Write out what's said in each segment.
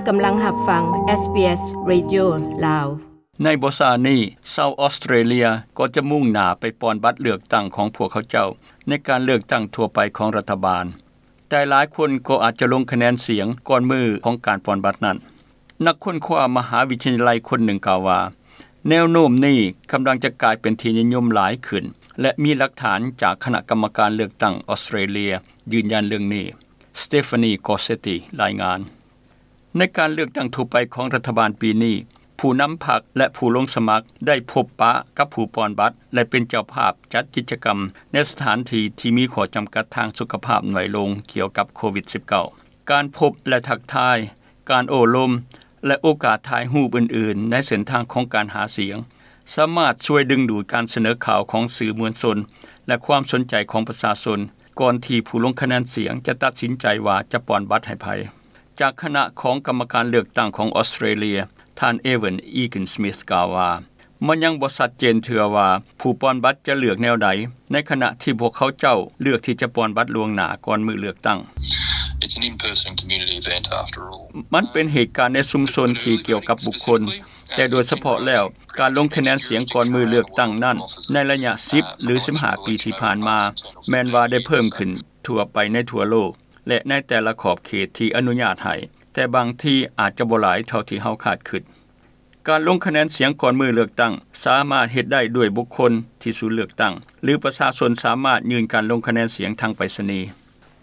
ກຳລັງຮັບຟັງ ເອສບີເອສ ເຣດິໂອ ລາວ. ໃນບໍ່ຊ້ານີ້, ຊາວອອສເຕຣເລຍກໍຈະມຸ່ງໜ້າໄປປ່ອນບັດເລືອກຕັ້ງຂອງພວກເຂົາເຈົ້າ ໃນການເລືອກຕັ້ງທົ່ວໄປຂອງລັດຖະບານ, ແຕ່ຫຼາຍຄົນກໍອາດຈະລົງຄະແນນສຽງກ່ອນມື້ຂອງການປ່ອນບັດນັ້ນ. ນັກຄົ້ນຄວ້າມະຫາວິທະຍາໄລຄົນໜຶ່ງກ່າວວ່າ, ແນວໂນ້ມນີ້ກຳລັງຈະກາຍເປັນທີ່ນິຍົມຫຼາຍຂຶ້ນ ແລະ ມີຫຼັກຖານຈາກຄະນະກຳມະການເລືອກຕັ້ງອອສເຕຣເລຍຢືນຢັນເລື່ອງນີ້. ສະເຕຟານີ ກອເຊຕີ ລາຍງານ. ໃນການເລືອກຕັ້ງທົ່ວໄປຂອງລັດຖະບານປີນີ້, ຜູ້ນຳພັກ ແລະ ຜູ້ລົງສະໝັກໄດ້ພົບປະກັບຜູ້ປ່ອນບັດ ແລະ ເປັນເຈົ້າພາບຈັດກິດຈະກຳໃນສະຖານທີ່ທີ່ມີຂໍ້ຈຳກັດທາງສຸຂະພາບໜ້ອຍລົງກ່ຽວກັບໂຄວິດສິບເກົ້າ. ການພົບ ແລະ ທັກທາຍ, ການໂອ້ລົມ ແລະ ໂອກາດຖ່າຍຮູບອື່ນໆໃນເສັ້ນທາງຂອງການຫາສຽງ ສາມາດຊ່ວຍດຶງດູດການສະເໜີຂ່າວຂອງສື່ມວນຊົນ ແລະ ຄວາມສົນໃຈຂອງປະຊາຊົນ ກ່ອນທີ່ຜູ້ລົງຄະແນນສຽງຈະຕັດສິນໃຈວ່າຈະປ່ອນບັດໃຫ້ໃຜ. ຈາກຄະນະຂອງກຳມະການເລືອກຕັ້ງຂອງອອສເຕຣເລຍ, ທ່ານ ເອເວັນ ອີກິນສມິດ ກ່າວວ່າ, ມັນຍັງບໍ່ຊັດເຈນເທື່ອວ່າຜູ້ປ່ອນບັດຈະເລືອກແນວໃດ, ໃນຂະນະທີ່ພວກເຂົາເຈົ້າເລືອກທີ່ຈະປ່ອນບັດລ່ວງໜ້າກ່ອນມື້ເລືອກຕັ້ງ. It's an in-person community event after all. ມັນເປັນເຫດການໃນຊຸມຊົນທີ່ກ່ຽວກັບບຸກຄົນ, ແຕ່ໂດຍສະເພາະແລ້ວ, ການລົງຄະແນນສຽງກ່ອນມື້ເລືອກຕັ້ງນັ້ນ, ໃນໄລຍະສິບ ຫຼື ສິບຫ້າປີທີ່ຜ່ານມາ, ແມ່ນວ່າໄດ້ເພີ່ມຂຶ້ນທົ່ວໄປໃນທົ່ວໂລກ ແລະ ໃນແຕ່ລະຂອບເຂດທີ່ອະນຸຍາດໃຫ້, ແຕ່ບາງທີອາດຈະບໍ່ຫຼາຍເທົ່າທີ່ເຮົາຄາດຄິດ. ການລົງຄະແນນສຽງກ່ອນມື້ເລືອກຕັ້ງສາມາດເຮັດໄດ້ດ້ວຍບຸກຄົນທີ່ສູນເລືອກຕັ້ງ ຫຼື ປະຊາຊົນສາມາດຍື່ນການລົງຄະແນນສຽງທາງໄປສະນີ.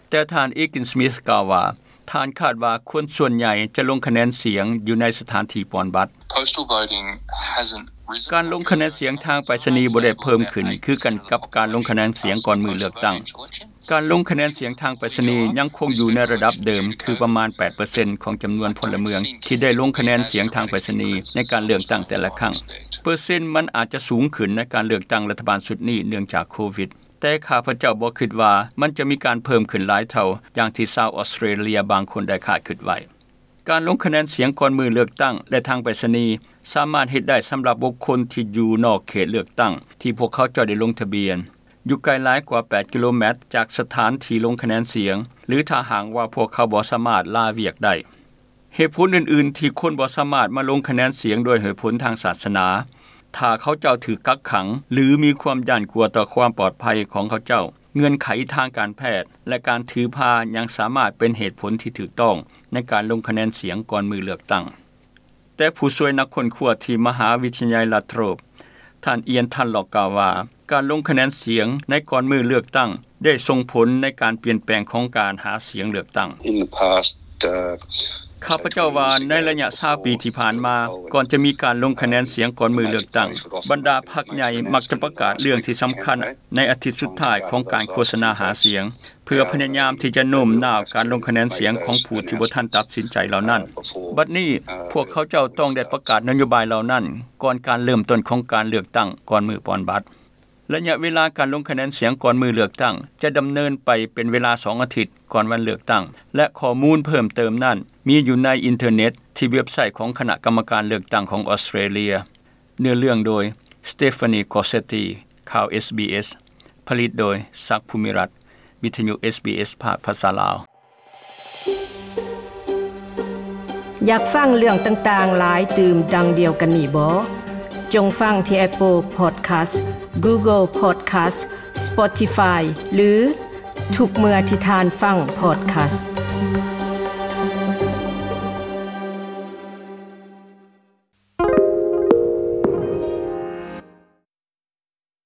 ແຕ່ທ່ານ ອີກິນສມິດ ກ່າວວ່າ, ທ່ານຄາດວ່າຄົນສ່ວນໃຫຍ່ຈະລົງຄະແນນສຽງຢູ່ໃນສະຖານທີ່ປ່ອນບັດ. Postal voting hasn't risen. ການລົງຄະແນນສຽງທາງໄປສະນີບໍ່ໄດ້ເພີ່ມຂຶ້ນຄືກັນກັບການລົງຄະແນນສຽງກ່ອນມື້ເລືອກຕັ້ງ. ການລົງຄະແນນສຽງທາງໄປສະນີຍັງຄົງຢູ່ໃນລະດັບເດີມ ຄືປະມານແປດເປີເຊັນຂອງຈຳນວນພົນລະເມືອງທີ່ໄດ້ລົງຄະແນນສຽງທາງໄປສະນີໃນການເລືອກຕັ້ງແຕ່ລະຄັ້ງ. ເປີເຊັນມັນອາດຈະສູງຂຶ້ນໃນການເລືອກຕັ້ງລັດຖະບານຊຸດນີ້ເນື່ອງຈາກໂຄວິດ, ແຕ່ຂ້າພະເຈົ້າບໍ່ຄິດວ່າມັນຈະມີການເພີ່ມຂຶ້ນຫຼາຍເທົ່າຢ່າງທີ່ຊາວອອສເຕຣເລຍບາງຄົນໄດ້ຄາດຄິດໄວ້. ການລົງຄະແນນສຽງກ່ອນມື້ເລືອກຕັ້ງ ແລະ ທາງໄປສະນີ ສາມາດເຮັດໄດ້ສຳລັບບຸກຄົນທີ່ຢູ່ນອກເຂດເລືອກຕັ້ງທີ່ພວກເຂົາເຈົ້າໄດ້ລົງທະບຽນ, ຢູ່ໄກຫຼາຍກວ່າແປດກິໂລແມັດຈາກສະຖານທີ່ລົງຄະແນນສຽງ ຫຼື ຖ້າຫາກວ່າພວກເຂົາບໍ່ສາມາດລາວຽກໄດ້. ເຫດຜົນອື່ນໆທີ່ຄົນບໍ່ສາມາດມາລົງຄະແນນສຽງດ້ວຍເຫດຜົນທາງສາສະໜາ, ຖ້າເຂົາເຈົ້າຖືກກັກຂັງ ຫຼື ມີຄວາມຢ້ານກົວຕໍ່ຄວາມປອດໄພຂອງເຂົາເຈົ້າ, ເງື່ອນໄຂທາງການແພດ ແລະ ການຖືພາຍັງສາມາດເປັນເຫດຜົນທີ່ຖືກຕ້ອງໃນການລົງຄະແນນສຽງກ່ອນມື້ເລືອກຕັ້ງ. ແຕ່ຜູ້ຊ່ວຍນັກຄົ້ນຄວ້າທີ່ມະຫາວິທະຍາໄລລັດໂທຣບ, ທ່ານ ອຽນ ທັນລັອກ ກ່າວວ່າ, ການລົງຄະແນນສຽງໃນກ່ອນມື້ເລືອກຕັ້ງໄດ້ສົ່ງຜົນໃນການປ່ຽນແປງຂອງການຫາສຽງເລືອກຕັ້ງ. In the past, uh, ຂ້າພະເຈົ້າວ່າໃນໄລຍະຊາວປີທີ່ຜ່ານມາ, ກ່ອນຈະມີການລົງຄະແນນສຽງກ່ອນມື້ເລືອກຕັ້ງ, ບັນດາພັກໃຫຍ່ມັກຈະປະກາດເລື່ອງທີ່ສຳຄັນໃນອາທິດສຸດທ້າຍຂອງການໂຄສະນາຫາສຽງ, ເພື່ອພະຍາຍາມທີ່ຈະໂນ້ມນ້າວການລົງຄະແນນສຽງຂອງຜູ້ທີ່ບໍ່ທັນຕັດສິນໃຈເຫຼົ່ານັ້ນ. ບັດນີ້, ພວກເຂົາເຈົ້າຕ້ອງໄດ້ປະກາດນະໂຍບາຍເຫຼົ່ານັ້ນ ກ່ອນການເລີ່ມຕົ້ນຂອງການເລືອກຕັ້ງກ່ອນມື້ປ່ອນບັດ. ໄລຍະເວລາການລົງຄະແນນສຽງກ່ອນມື້ເລືອກຕັ້ງຈະດຳເນີນໄປເປັນເວລາສອງອາທິດກ່ອນວັນເລືອກຕັ້ງ ແລະ ຂໍ້ມູນເພີ່ມເຕີມນັ້ນມີຢູ່ໃນອິນເຕີເນັດທີ່ເວັບໄຊຂອງຄະນະກຳມະການເລືອກຕັ້ງຂອງອອສເຕຣເລຍ. ເນື້ອເລື່ອງໂດຍ ສະເຕຟານີ ກອເຊຕີ. ຂ່າວ ເອສບີເອສ ຜະລິດໂດຍ ສັກ ພູມິລັດ. ວິທະຍຸ ເອສບີເອສ ພາກພາສາລາວ. ຢາກຟັງເລື່ອງຕ່າງໆຫຼາຍຕື່ມດັ່ງດຽວກັນນີ້ບໍ? ຈົ່ງຟັງທີ່ Apple Podcast, Google Podcast, Spotify ຫຼື ທຸກເມື່ອທີ່ທ່ານຟັງ Podcast.